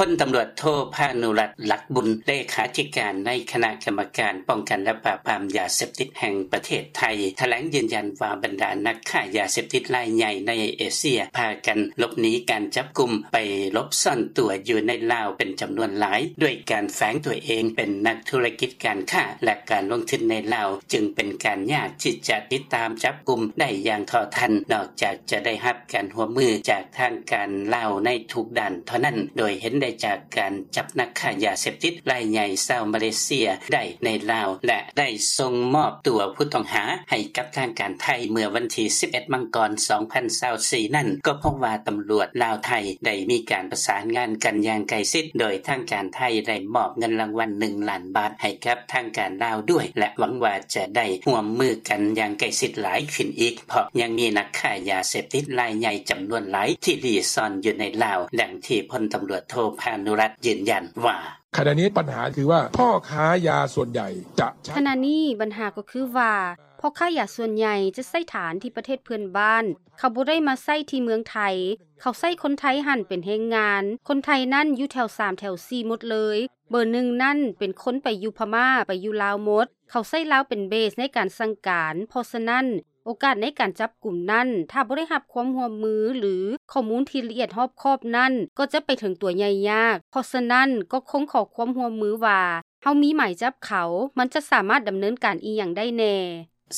ພົນຕຳຫຼວດໂທ ພານຸລັດ ຫຼັກບຸນ ເລຂາທິການໃນຄະນະກຳມະການປ້ອງກັນ ແລະ ປາບປາມຢາເສບຕິດແຫ່ງປະເທດໄທ ຖະແຫຼງຢືນຢັນວ່າ ບັນດານັກຄ້າຢາເສບຕິດລາຍໃຫຍ່ໃນເອເຊຍ ພາກັນຫຼົບໜີການຈັບກຸມ ໄປຫຼົບຊ່ອນຕົວຢູ່ໃນລາວເປັນຈຳນວນຫຼາຍ ດ້ວຍການແຝງຕົວເອງເປັນນັກທຸລະກິດການຄ້າ ແລະ ການລົງທຶນໃນລາວ ຈຶ່ງເປັນການຍາກທີ່ຈະຕິດຕາມຈັບກຸມໄດ້ຢ່າງເທົ່າທັນ ນອກຈາກຈະໄດ້ຮັບການຮ່ວມມືຈາກທາງການລາວໃນທຸກດ້ານເທົ່ານັ້ນ ໂດຍເຫັນໄດ້ຈາກການຈັບນັກຄ້າຢາເສບຕິດລາຍໃຫຍ່ຊາວມາເລເຊຍໄດ້ໃນລາວ ແລະ ໄດ້ສົ່ງມອບຕົວຜູ້ຕ້ອງຫາໃຫ້ກັບທາງການໄທເມື່ອວັນທີສິບເອັດ ມັງກອນ ສອງພັນຊາວສີ່ນັ້ນ ກໍພົບວ່າຕຳຫຼວດລາວ-ໄທໄດ້ມີການປະສານງານກັນຢ່າງໃກ້ຊິດ ໂດຍທາງການໄທໄດ້ມອບເງິນລາງວັນໜຶ່ງລ້ານບາດໃຫ້ກັບທາງການລາວດ້ວຍ ແລະ ຫວັງວ່າຈະໄດ້ຮ່ວມມືກັນຢ່າງໃກ້ຊິດຫຼາຍຂຶ້ນອີກ ເພາະຍັງມີນັກຄ້າຢາເສບຕິດລາຍໃຫຍ່ຈຳນວນຫຼາຍທີ່ລີ້ຊ່ອນຢູ່ໃນລາວ, ດັ່ງທີ່ພົນຕຳຫຼວດໂທ ພານຸລັດ ຢືນຢັນວ່າ: ຂະນະນີ້ບັນຫາຄືວ່າ ພໍ່ຄ້າຢາສ່ວນໃຫຍ່ຈະໃຊ້ ຂະນະນີ້ບັນຫາກໍຄືວ່າ ພໍ່ຄ້າຢາສ່ວນໃຫຍ່ຈະໃຊ້ຖານທີ່ປະເທດເພື່ອນບ້ານ, ເຂົາບໍ່ໄດ້ມາໃຊ້ທີ່ເມືອງໄທ, ເຂົາໃຊ້ຄົນໄທຫັ້ນເປັນແຮງງານ, ຄົນໄທນັ້ນຢູ່ແຖວສາມແຖວສີ່ໝົດເລີຍ, ເບີໜຶ່ງນັ້ນເປັນຄົນໄປຢູ່ພະມ້າ, ໄປຢູ່ລາວໝົດ, ເຂົາໃຊ້ລາວເປັນເບສໃນການສັ່ງການ, ເພາະສະນັ້ນ ໂອກາດໃນການຈັບກຸມນັ້ນ ຖ້າບໍ່ໄດ້ຮັບຄວາມຮ່ວມມື ຫຼື ຂໍ້ມູນທີ່ລະອຽດຮອບຄອບນັ້ນ ກໍຈະໄປເຖິງຕົວໃຫຍ່ຍາກ. ເພາະສະນັ້ນ ກໍຄົງຂໍຄວາມຮ່ວມມືວ່າ ເຮົາມີໝາຍຈັບເຂົາ ມັນຈະສາມາດດຳເນີນການອີ່ຫຍັງໄດ້ແນ່.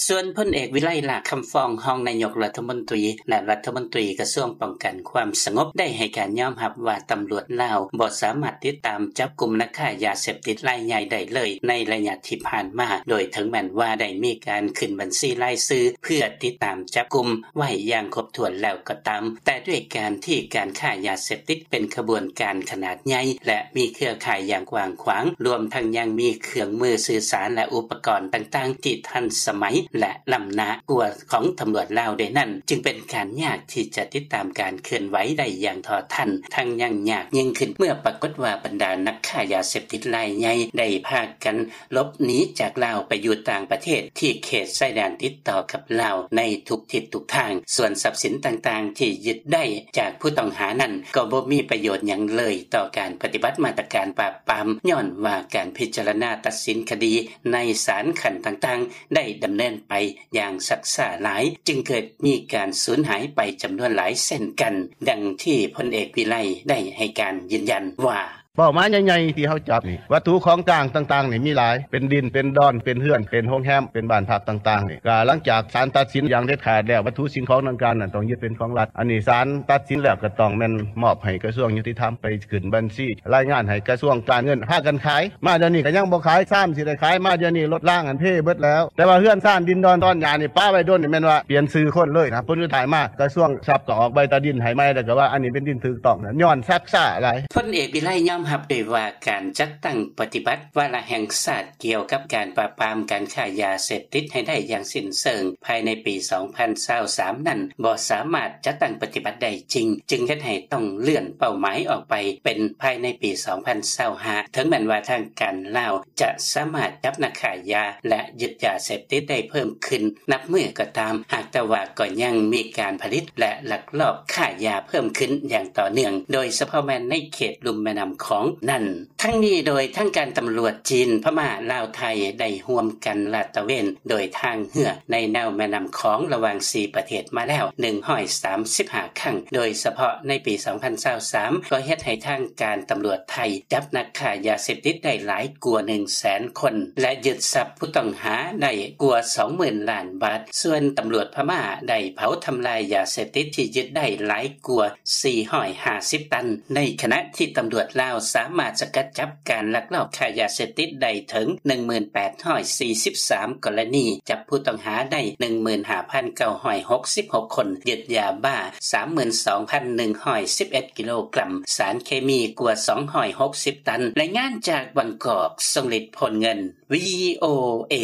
ສ່ວນພົນເອກ ວິໄລ ຫຼ້າຄຳຟອງ ຮອງນາຍົກລັດຖະມົນຕີ ແລະ ລັດຖະມົນຕີກະຊວງປ້ອງກັນຄວາມສະຫງົບ ໄດ້ໃຫ້ການຍອມຮັບວ່າ ຕຳຫຼວດລາວບໍ່ສາມາດຕິດຕາມຈັບກຸມນັກຄ້າຢາເສບຕິດລາຍໃຫຍ່ໄດ້ເລີຍໃນໄລຍະທີ່ຜ່ານມາ, ໂດຍເຖິງແມ່ນວ່າໄດ້ມີການຂຶ້ນບັນຊີລາຍຊື່ເພື່ອຕິດຕາມຈັບກຸມໄວ້ຢ່າງຄົບຖ້ວນແລ້ວກໍຕາມ, ແຕ່ດ້ວຍການທີ່ການຄ້າຢາເສບຕິດເປັນຂະບວນການຂະໜາດໃຫຍ່ ແລະ ມີເຄືອຂ່າຍຢ່າງກວ້າງຂວາງ, ລວມທັງຍັງມີເຄື່ອງມືສື່ສານ ແລະ ອຸປະກອນຕ່າງໆທີ່ທັນສະໄໝ ແລະ ລ້ຳໜ້າກວ່າຂອງຕຳຫຼວດລາວດ້ວຍນັ້ນ, ຈຶ່ງເປັນການຍາກທີ່ຈະຕິດຕາມການເຄື່ອນໄຫວໄດ້ຢ່າງເທົ່າທັນ, ທັງຍັງຍາກຍິ່ງຂຶ້ນເມື່ອປາກົດວ່າບັນດານັກຄ້າຢາເສບຕິດລາຍໃຫຍ່ໄດ້ພາກັນ ຫຼົບໜີຈາກລາວໄປຢູ່ຕ່າງປະເທດທີ່ເຂດຊາຍແດນຕິດຕໍ່ກັບລາວໃນທຸກທິດທຸກທາງ. ສ່ວນຊັບສິນຕ່າງໆທີ່ຍຶດໄດ້ຈາກຜູ້ຕ້ອງຫານັ້ນ ກໍບໍ່ມີປະໂຫຍດຫຍັງເລີຍຕໍ່ການປະຕິບັດມາດຕະການປາບປາມ, ຍ້ອນວ່າການພິຈາລະນາຕັດສິນຄະດີໃນສານຂັ້ນຕ່າງໆ ໄດ້ດຳເນີນໄປຢ່າງຊັກຊ້າຫຼາຍ, ຈຶ່ງເກີດມີການສູນຫາຍໄປຈຳນວນຫຼາຍເຊັ່ນກັນ, ດັ່ງທີ່ພົນເອກ ວິໄລ ໄດ້ໃຫ້ການຢືນຢັນວ່າ: ເປົ້າໝາຍໃຫຍ່ໆທີ່ເຮົາຈັບນີ້ ວັດຖຸຂອງກາງຕ່າງໆນີ້ມີຫຼາຍ ເປັນດິນ ເປັນດອນ ເປັນເຮືອນ ເປັນໂຮງແຮມ ເປັນບ້ານພັກຕ່າງໆນີ້ ກະຫຼັງຈາກສານຕັດສິນຢ່າງເດັດຂາດແລ້ວ ວັດຖຸສິ່ງຂອງດັ່ງກ່າວນັ້ນຕ້ອງຍຶດເປັນຂອງລັດ. ອັນນີ້ສານຕັດສິນແລ້ວກະຕ້ອງແມ່ນມອບໃຫ້ກະຊວງຍຸຕິທຳໄປຂຶ້ນບັນຊີ ລາຍງານໃຫ້ກະຊວງການເງິນ ພາກັນຂາຍ. ມາດຽວນີ້ກະຍັງບໍ່ຂາຍ ຊາມຊິໄດ້ຂາຍ ມາດຽວນີ້ລົດລາງຫັ້ນເພເບິດແລ້ວ. ແຕ່ວ່າເຮືອນຊານ ດິນດອນ ຕອນຫຍ້ານີ້ປະໄວ້ດົນນີ້ ແມ່ນວ່າປ່ຽນຊື່ຄົນເລີຍນະ. ຜົນສຸດທ້າຍມາ ກະຊວງຊັບກໍອອກໃບຕາດິນໃຫ້ໃໝ່ ແລ້ວກໍວ່າອັນນີ້ເປັນດິນຖືກຕ້ອງ ຍ້ອນຊັກຊ້າຫຼາຍ. ພົນເອກ ວິໄລ ຍອມຮັບໄດ້ວ່າ ການຈັດຕັ້ງປະຕິບັດວາລະແຫ່ງຊາດກ່ຽວກັບການປາບປາມການຄ້າຢາເສບຕິດໃຫ້ໄດ້ຢ່າງສິ້ນເຊີງພາຍໃນປີສອງພັນຊາວສາມນັ້ນ ບໍ່ສາມາດຈັດຕັ້ງປະຕິບັດໄດ້ຈິງ, ຈຶ່ງເຮັດໃຫ້ຕ້ອງເລື່ອນເປົ້າໝາຍອອກໄປເປັນພາຍໃນປີສອງພັນຊາວຫ້າ ເຖິງແມ່ນວ່າທາງການລາວຈະສາມາດຈັບນັກຄ້າຢາ ແລະ ຍຶດຢາເສບຕິດໄດ້ເພີ່ມຂຶ້ນ ນັບມື້ກໍຕາມ, ຫາກແຕ່ວ່າກໍຍັງມີການຜະລິດ ແລະ ລັກລອບຄ້າຢາເພີ່ມຂຶ້ນຢ່າງຕໍ່ເນື່ອງ, ໂດຍສະເພາະແມ່ນໃນເຂດລຸ່ມແມ່ນ້ຳຂອງນັ້ນ. ທັງນີ້ໂດຍທາງການຕຳຫຼວດຈີນ, ພະມ້າ, ລາວ, ໄທ ໄດ້ຮ່ວມກັນລາດຕະເວນໂດຍທາງເຮືອໃນແນວແມ່ນ້ຳຂອງລະຫວ່າງສີ່ປະເທດມາແລ້ວໜຶ່ງຮ້ອຍສາມສິບຫ້າຄັ້ງ, ໂດຍສະເພາະໃນປີສອງພັນຊາວສາມ ກໍເຮັດໃຫ້ທາງການຕຳຫຼວດໄທຈັບນັກຄ້າຢາເສບຕິດໄດ້ຫຼາຍກວ່າໜຶ່ງແສນຄົນ ແລະ ຍຶດຊັບ ຜູ້ຕ້ອງຫາໄດ້ກວ່າສອງໝື່ນລ້ານບາດ, ສ່ວນຕຳຫຼວດພະມ້າໄດ້ເຜົາທຳລາຍຢາເສບຕິດທີ່ຍຶດໄດ້ຫຼາຍກວ່າສີ່ຮ້ອຍຫ້າສິບຕັນ, ໃນຂະນະທີ່ຕຳຫຼວດລາວສາມາດສະກັດຈັບການລັກລອບຄ້າຢາເສບຕິດໄດ້ເຖິງໜຶ່ງໝື່ນແປດຮ້ອຍສີ່ສິບສາມກໍລະນີ, ຈັບຜູ້ຕ້ອງຫາໄດ້ໜຶ່ງໝື່ນຫ້າພັນເກົ້າຮ້ອຍຫົກສິບຫົກຄົນ, ຍຶດຢາບ້າສາມໝື່ນສອງພັນໜຶ່ງຮ້ອຍສິບເອັດກິໂລກຣັມ, ສານເຄມີກວ່າສອງຮ້ອຍຫົກສິບຕັນ. ລາຍງານຈາກບາງກອກ, ຊົງລິດ ໂພນເງິນ, ວີໂອເອ.